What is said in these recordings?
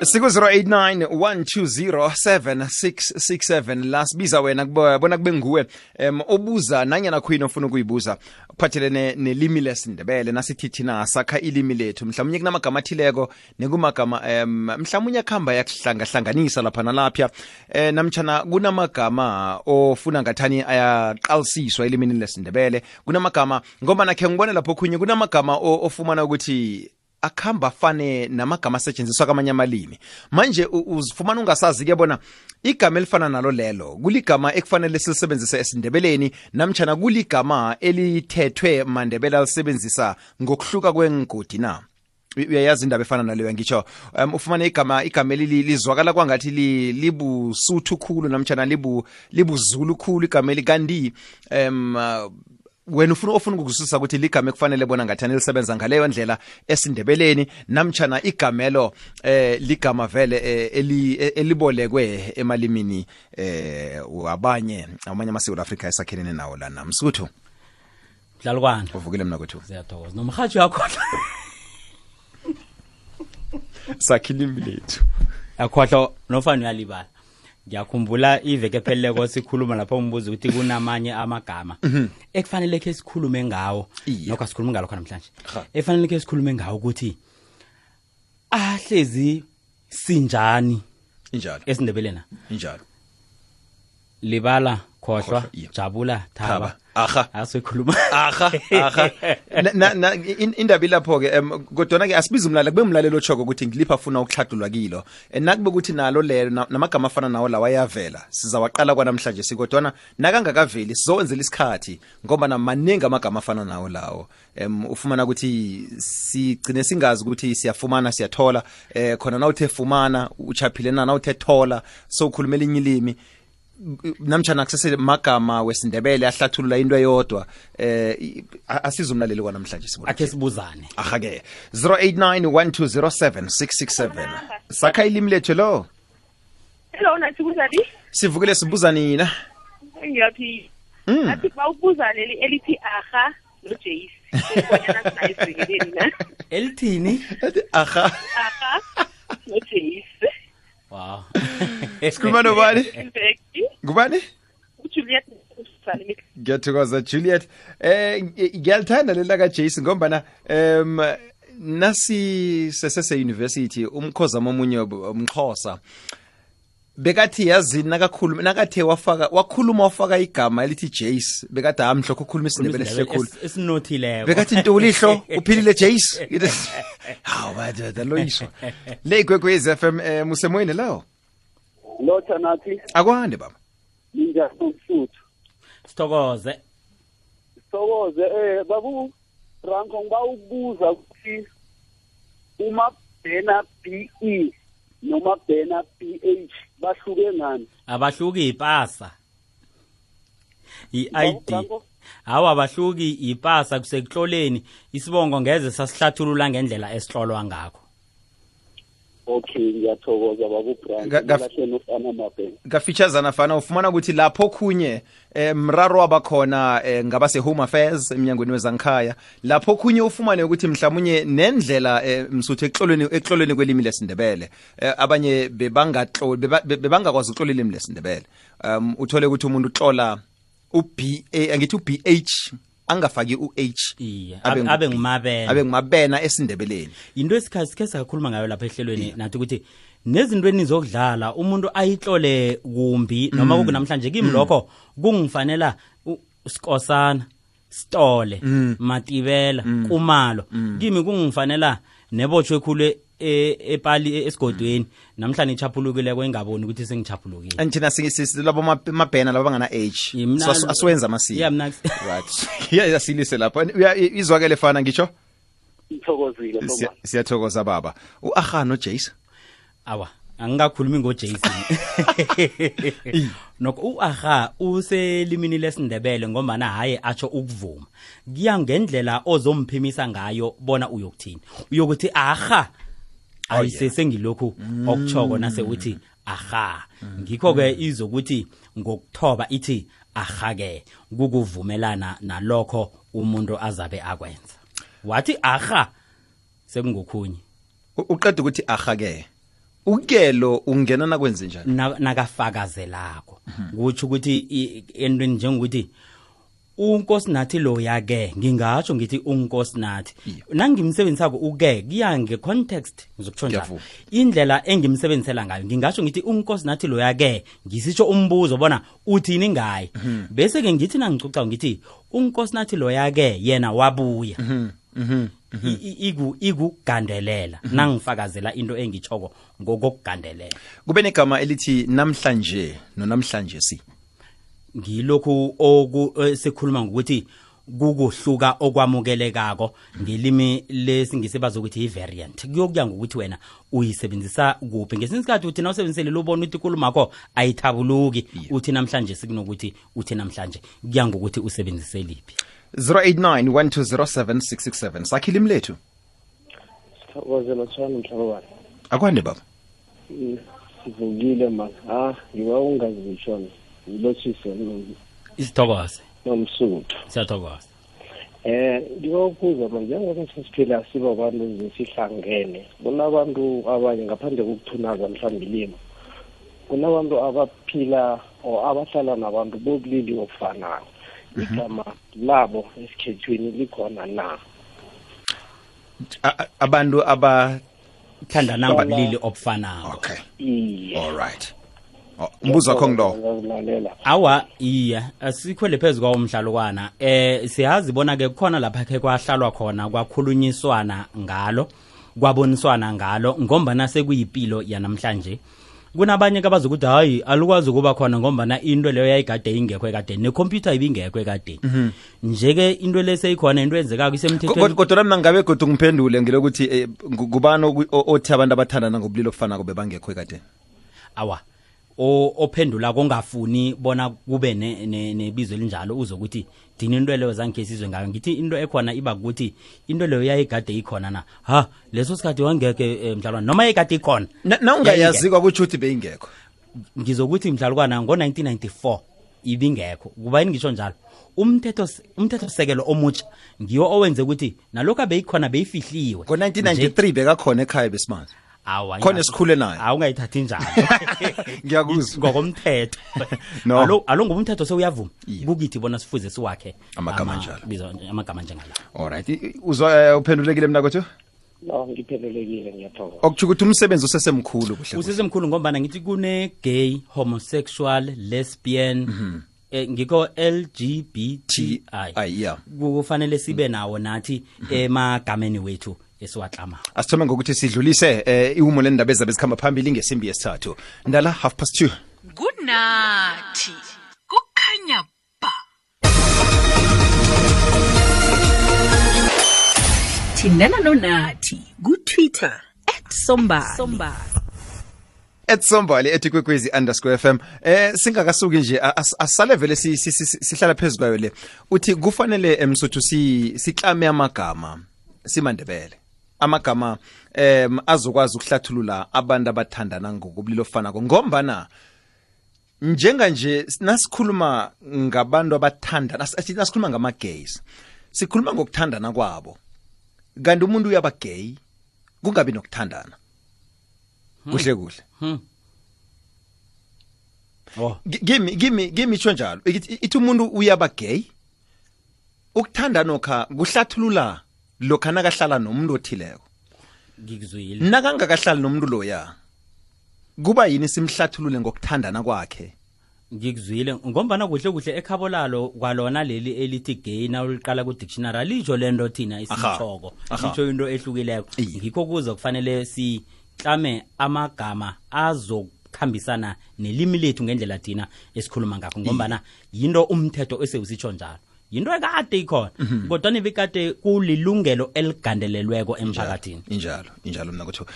siku 0891207667 la sibiza wena bona kube nguwe obuza nanyana khuyini ofuna ukuyibuza kuphathelene nelimi lesindebele nasithi thina sakha ilimi lethu mhlawumnye kunamagama athileko nekumagama mhlawumnye akhamba yakuhlangahlanganisa lapha nalapha namtjana kunamagama ofuna ngathani ayaqalisiswa elimini lesindebele kunamagama ngoba nakhe ngibone lapho khunye kunamagama ofumana ukuthi akhamba fane namagama asetshenziswa kwamanye amalimi manje uzifumana ungasazi-ke bona igama elifana nalo lelo kuligama ekufanele silisebenzise esindebeleni namtjana kuligama elithethwe mandebele alisebenzisa ngokuhluka kwengodi na uyayazi indaba efana naleyo ngitsho ufumane igama lizwakala kwangathi libusuthu khulu namtjana libuzulu khulu igama elikanti wena ofuna ukuzwisisa ukuthi ligama ekufanele bona ngathani lisebenza ngaleyo ndlela esindebeleni namtjana igamelo ligama vele elibolekwe emalimini amanye amasewula Afrika esakhelene nawo lana Msuthu Dlalukwana uvukile mina kwethu siyathokoza nomhathi yakho sakhilimi lethu akhohlo nofana uyalibala ngiyakhumbula iveke pheleleko sikhuluma lapho umbuzo ukuthi kunamanye amagama ekufanele ke sikhulume ngawo nokho sikhuluma ngalo khona namhlanje efanele ke sikhulume ngawo ukuthi ahlezi sinjani injalo esindebelena injalo libala khohlwa jabula thaba asikhuluma indaba lapho ke kodwa ke asibiza umlaleli kube umlaleli ochoko ukuthi ngilipha afuna ukuhlathulwa kilo nakube ukuthi nalo lelo namagama afana nawo lawa ayavela sizawaqala kwanamhlanje sikodwa nakangakaveli sizowenzela isikhathi ngoba namaningi amagama afana nawo lawo ufumana ukuthi sigcine singazi ukuthi siyafumana siyathola khona nawuthe fumana uchaphile nawuthe thola so ukhulumela inye ilimi namtjana kusese magama wesindebele ahlathulula into eyodwa asizumlaleli kwanamhlanje sibona akhe sibuzane ke 0891207667 sakha ilimi lethu lo hello nathi kuzali sivukile sibuza nina ngiyaphila athi bawubuza leli elithi aha no Jace kwanyana sinayisekeleni na elithini aha no Jace wow sikhuluma nobani ngubani uJuliet ngiyathokoza Juliet ngiyalithanda lela ka Jason ngombana nasi sesese university umkhozama omunye umXhosa bekathi yazi nakathe wakhuluma wafaka igama elithi Jace bekathi amhlokho ukhuluma isindebele sikhulu esinothileko bekathi intolihlo uphilile Jace hawu bada loyiswa le Kwekwezi FM musemoyini lawo lotha nathi akwande baba ninjani Msuthu sithokoze babu Ranko ngibawubuza ukuthi uma bhena BE noma bhena PH bahluke ngani abahluki ipasa iID hawa abahluki ipasa kusekuhloleni isibongo ngeze sasihlathulula ngendlela esihlolwa ngakho okay ngiyathokoza babu gafeaturesana fana ufumana ukuthi lapho khunye mraro wabakhona ngabase home affairs eminyangweni wezankhaya lapho khunye ufumane ukuthi mhlawumnye nendlela Msuthu eklolweni kwelimi lesindebele abanye bebangakwazi ukuxola ilimi lesindebele uthole ukuthi umuntu uxola uBA angithi uBH angafaki uH abe ngumabena esindebeleni into esikhathi sakhuluma ngayo lapha ehlelweni nathi ukuthi nezinto enizokudlala umuntu ayihlole kumbi noma kunamhlanje kimi lokho kungifanela Skosana Stole Matibela Kumalo kimi kungifanela nebotshwe khulu epali esigodweni namhlanje ichaphulukile kwengaboni ukuthi sengichaphulukile anjena labo mabhena laba bangana H asiwenza amasiko right yasilise lapha izwakele fana ngisho ngithokozile siyathokoza baba uAha no Jace awa angikakhulumi ngoJason nokho uAha uselimini lesindebele ngoba na haye atsho ukuvuma kuya ngendlela ozomphimisa ngayo bona uyokuthini uyokuthi aha ayisese ngilokhu okuchoko nase uthi aha ngikho ke izokuthi ngokuthoba ithi aha ke kukuvumelana nalokho umuntu azabe akwenza wathi aha sekungokhunye uqeda ukuthi aha ke ukelo ungena nakwenze njani nakafakazelako kutsho ukuthi entweni njengokuthi unkosinathi lo yake ngingatsho ngithi unkosinathi nangimsebenzisako uke kuya ngecontext ngizokutsho njalo indlela engimsebenzisela ngayo ngingatsho ngithi unkosinathi lo yake ngisitsho umbuzo bona uthini ngaye bese ke ngithi nangicuca ngithi unkosinathi lo yake yena wabuya igugandelela nangifakazela into engitshoko ngokugandelela kube negama elithi namhlanje nonamhlanje si ngilokhu sikhuluma ngokuthi kukuhluka okwamukelekako ngelimi lesingisi bazokuthi i-variant kuyokuya ngokuthi wena uyisebenzisa kuphi ngesinye isikhathi uthi nawusebenzisele lobona ukuthi ikulumakho ayithabuluki uthi namhlanje sikunokuthi uthi namhlanje kuya ngokuthi usebenzise liphi 089 sakhilimi lethu sithokozela tshwana mhlabani akwande baba sivukile man ngiba ungazishona ngilotshise isithokoze nomsuthu siyathokoza ngiba ukubuza manje njengoba sesiphila siba abantu zesihlangene kunabantu abanye ngaphandle kokuthunaza mhlawumbe ilimo kunabantu abaphila or abahlala nabantu bobulili obufanayo igama labo esikhethweni likhona na abantu abathandana ngobulili obufanayo okay all right umbuzo wakho ngilo awa iya asikhwele phezulu kwamhlalukwana siyazi bona ke khona lapha ke kwahlalwa khona kwakhulunyiswana ngalo kwaboniswana ngalo ngombana sekuyipilo yanamhlanje kunabanye abazokuthi hayi alukwazi ukuba khona ngombana into leyo yayigade ingekho ekade necomputer ibingekho ekade nje ke into leseyikhona into enzekako isemthethweni kodwa mina ngabe kodwa ngiphendule ngilokuthi kubani othi abantu abathandana ngobulilo obufanako bebangekho ekade awa ophendula kongafuni bona kube nebizo elinjalo uzokuthi dini into leyo zange sizwe ngayo ngithi into ekhona iba ukuthi into leyo yayigade ikhona na leso sikhathi wangeke mhlalwana noma yayigade ikhona na ungayazi kwakuthi uthi beyingekho ngizokuthi mhlalukwana ngo1994 ibingekho kuba ngisho njalo umthetho sekelo omutsha ngiyo owenze ukuthi nalokho beyikhona beyifihliwe ngo1993 bekakhona ekhaya besimanje khona esikhule naye awungayithathi njalo ngiyakuzwa ngokomthetho no alo ngomthetho sewuyavuma kukithi bona sifuze siwakhe amagama njalo amagama njengala alright uzwa uphendulekile mina kwethu no ngiphendulekile ngiyathokoza okuthi ukuthi umsebenzi usesemkhulu kuhle usesemkhulu ngombana ngithi kune gay homosexual lesbian ngiko LGBTI yeah kufanele sibe nawo nathi emagameni wethu esiwaklama asithome ngokuthi sidlulise ihumo lendaba ezabezikhamba phambili ngesimbi yesithathu ndala 2:30 kunathi kukhanya ba thindana nonathi ku-Twitter @sombali @sombali @kwekwezi_FM singakasuki nje asale vele sihlala phezulu kwayo le uthi kufanele emsuthu siklame amagama simandebele amagama azokwazi ukuhlathulula abantu abathandana ngokubulilo ofanako ngombana njenganje nasikhuluma ngabantu abathandana nasikhuluma ngama-gays sikhuluma ngokuthandana kwabo kanti umuntu uyaba gay kungabi nokuthandana kuhle kuhle gimi itsho njalo ithi umuntu uyaba gay ukuthandana okha kuhlathulula lokha nakahlala nomuntu othileko ngikuzwile nakangakahlali nomuntu loya kuba yini simhlathulule ngokuthandana kwakhe ngikuzwile ngombana kuhle ekhabo lalo kwalona leli elithi gay na uliqala ku dictionary alijo lento thina isitshoko isho into ehlukileko ngikho kuza kufanele siklame amagama azokhambisana nelimi lethu ngendlela thina esikhuluma ngakho ngombana yinto umthetho esewusitsho njalo yinto ekade ikhona kodwa nebekade kulilungelo eligandelelweko emphakathini injalo mina kuthiwa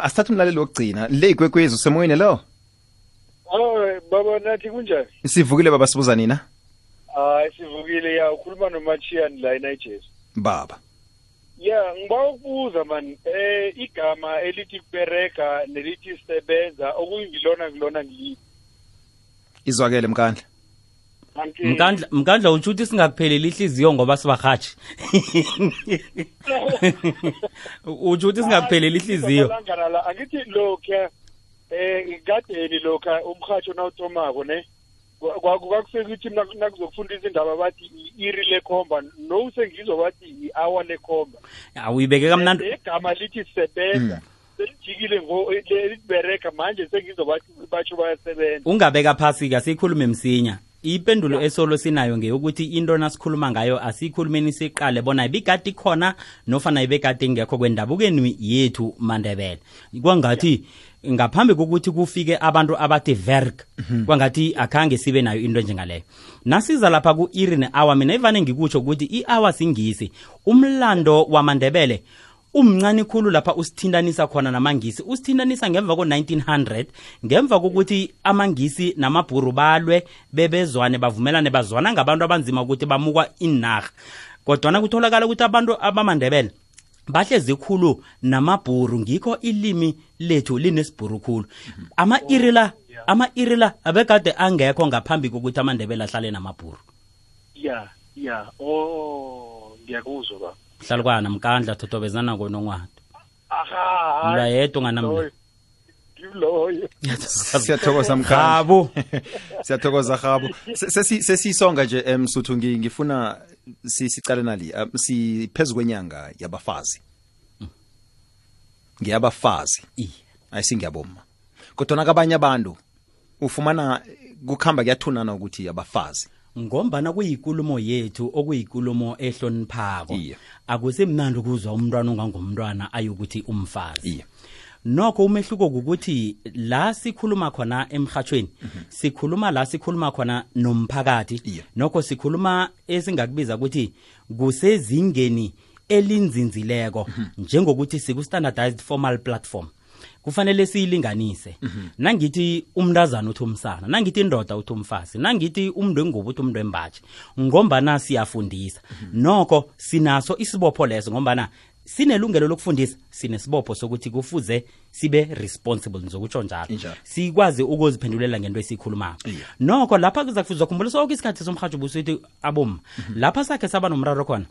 asithathe umlaleli wokugcina le ikwekwezi usemoyeni lo baba nathi kunjani sivukile baba sibuza nina sivukile ya ukhuluma noMachian la eNigeria baba ya ngiba ukubuza man igama elithi kubereka nelithi sebenza okuyingilona ngilithi izwakele mkandla mkandla uthi singakupheleli ihliziyo ngoba sibahathi uthi singakupheleli ihliziyo angithi lokho ngadeni lokha umrhatsho nawuthomako ne kwakufika ukuthi nakuzokufundisa indaba bathi iri lekhomba no sengizwa bathi i-hour lekhomba awuyibeke kamnandi igama lithi sebenza selijikile libereka manje sengizwa bathi batsho bayasebenza ungabeka phasi ka sikhulume msinya ipendulo esolo sinayo ngeyokuthi into nasikhuluma ngayo asikhulumeni siqale bona ibikati khona nofana ibekati ngekho kwendabukeni yethu Mandebele kwangathi ngaphambi kokuthi kufike abantu abathi verk kwangathi akhange sibe nayo into njengaleyo nasiza lapha ku iri ne-hour mina ivane ngikutsho ukuthi i-hour singisi umlando waMandebele umncane khulu lapha usithindanisa khona namangisi usithindanisa ngemva ko-1900 ngemva kokuthi amangisi namabhuru balwe bebezwane bavumelane bazwana ngabantu abanzima ukuthi bamukwa inarha kodwana kutholakala ukuthi abantu abamandebele bahlezi khulu namabhuru ngikho ilimi lethu linesibhuru khulu ama-iri la abekade angekho ngaphambi kokuthi amandebele ahlale namabhuru ngiyakuzwa ba hlalukwana mkandla thotobezana konongwato aha mla yedwa nganamla loyo siyathokoza mkhabo siyathokoza khabo sesisonga nje Msuthu ngifuna sicale nali siphezulu kwenyanga yabafazi ngiyabafazi ayisingiyaboma kodwa nakabanye abantu ufumana kukhamba kuyathunana ukuthi abafazi ngombana kuyikulumo yethu okuyikulumo ehloniphako akusemnandi ukuzwa umntwana ongangumntwana ayokuthi umfazi nokho umehluko ukuthi la sikhuluma khona emhathweni sikhuluma la sikhuluma khona nomphakathi nokho sikhuluma esingakubiza ukuthi kusezingeni elinzinzileko njengokuthi siku standardized formal platform kufanele siyilinganise nangithi umntazana uthi umsana nangithi indoda uthi umfazi nangithi umntu wengubo uthi umntu wembaji ngombana siyafundisa nokho sinaso isibopho leso ngombana sinelungelo lokufundisa sinesibopho sokuthi kufuze sibe responsible ngizokutsho njalo sikwazi ukuziphendulela ngento esikhulumako nokho lapha kuzakufuzwa khumbula sonke isikhathi somhatsho busithi aboma lapha sakhe saba nomraro khona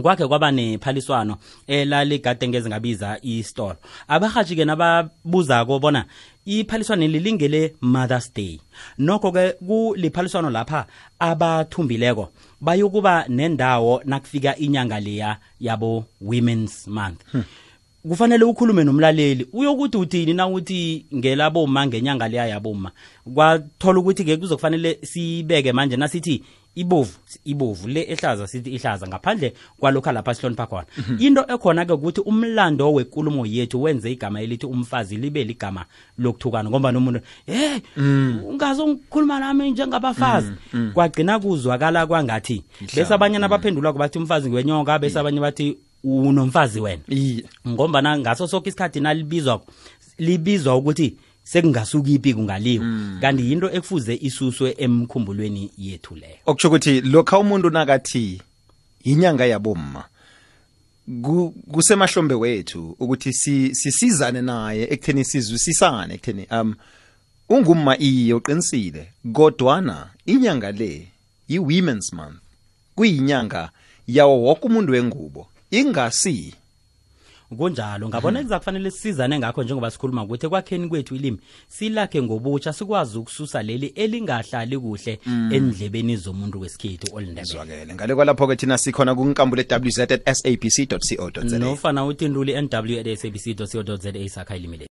kwakhe kwaba nephaliswano elaligade ngeze ngabiza istore abahaji ke nababuzako bona iphaliswano lilingele Mother's Day nokho ke kuliphaliswano lapha abathumbileko bayokuba nendawo nakufika inyanga leya yabo Women's Month kufanele ukhulume nomlaleli uyokuthi uthini na uthi ngelaboma ngenyanga leya yaboma kwathola ukuthi ke kuzokufanele sibeke manje nasithi ibovu le ehlaza sithi ihlaza ngaphandle kwalokho lapha sihlonipha khona into ekhona ke ukuthi umlando wenkulumo yethu wenze igama elithi umfazi libe ligama lokuthukana ngoba nomuntu ungazongikhuluma nami njengabafazi kwagcina kuzwakala kwangathi bese abanye nabaphendula kubathi umfazi ngwenyonga bese abanye bathi unomfazi wena ngoba ngaso sonke isikhathi libizwa ukuthi sekungasuki ipi kungaliwa kanti into ekufuze isuswe emkhumbulweni yethu leyo okutsho ukuthi lokho umuntu nakathi inyanga yabomma kusemahlombe wethu ukuthi sisizane naye ekutheni sizwisisane ekutheni ungumma iyo uqinisile kodwana inyanga le i-Women's Month kuyinyanga yawo wonke umuntu wengubo ingasi kunjalo ngabona kuzakufanele sisizane ngakho njengoba sikhuluma ukuthi ekwakheni kwethu ilimi silakhe ngobutsha sikwazi ukususa leli elingahlali kuhle endlebeni zomuntu wesikhethu olindebele ngale kwalapho ke thina sikhona kunkambule www.sabc.co.za nofana uthinduli nw@sabc.co.za sakha ilimi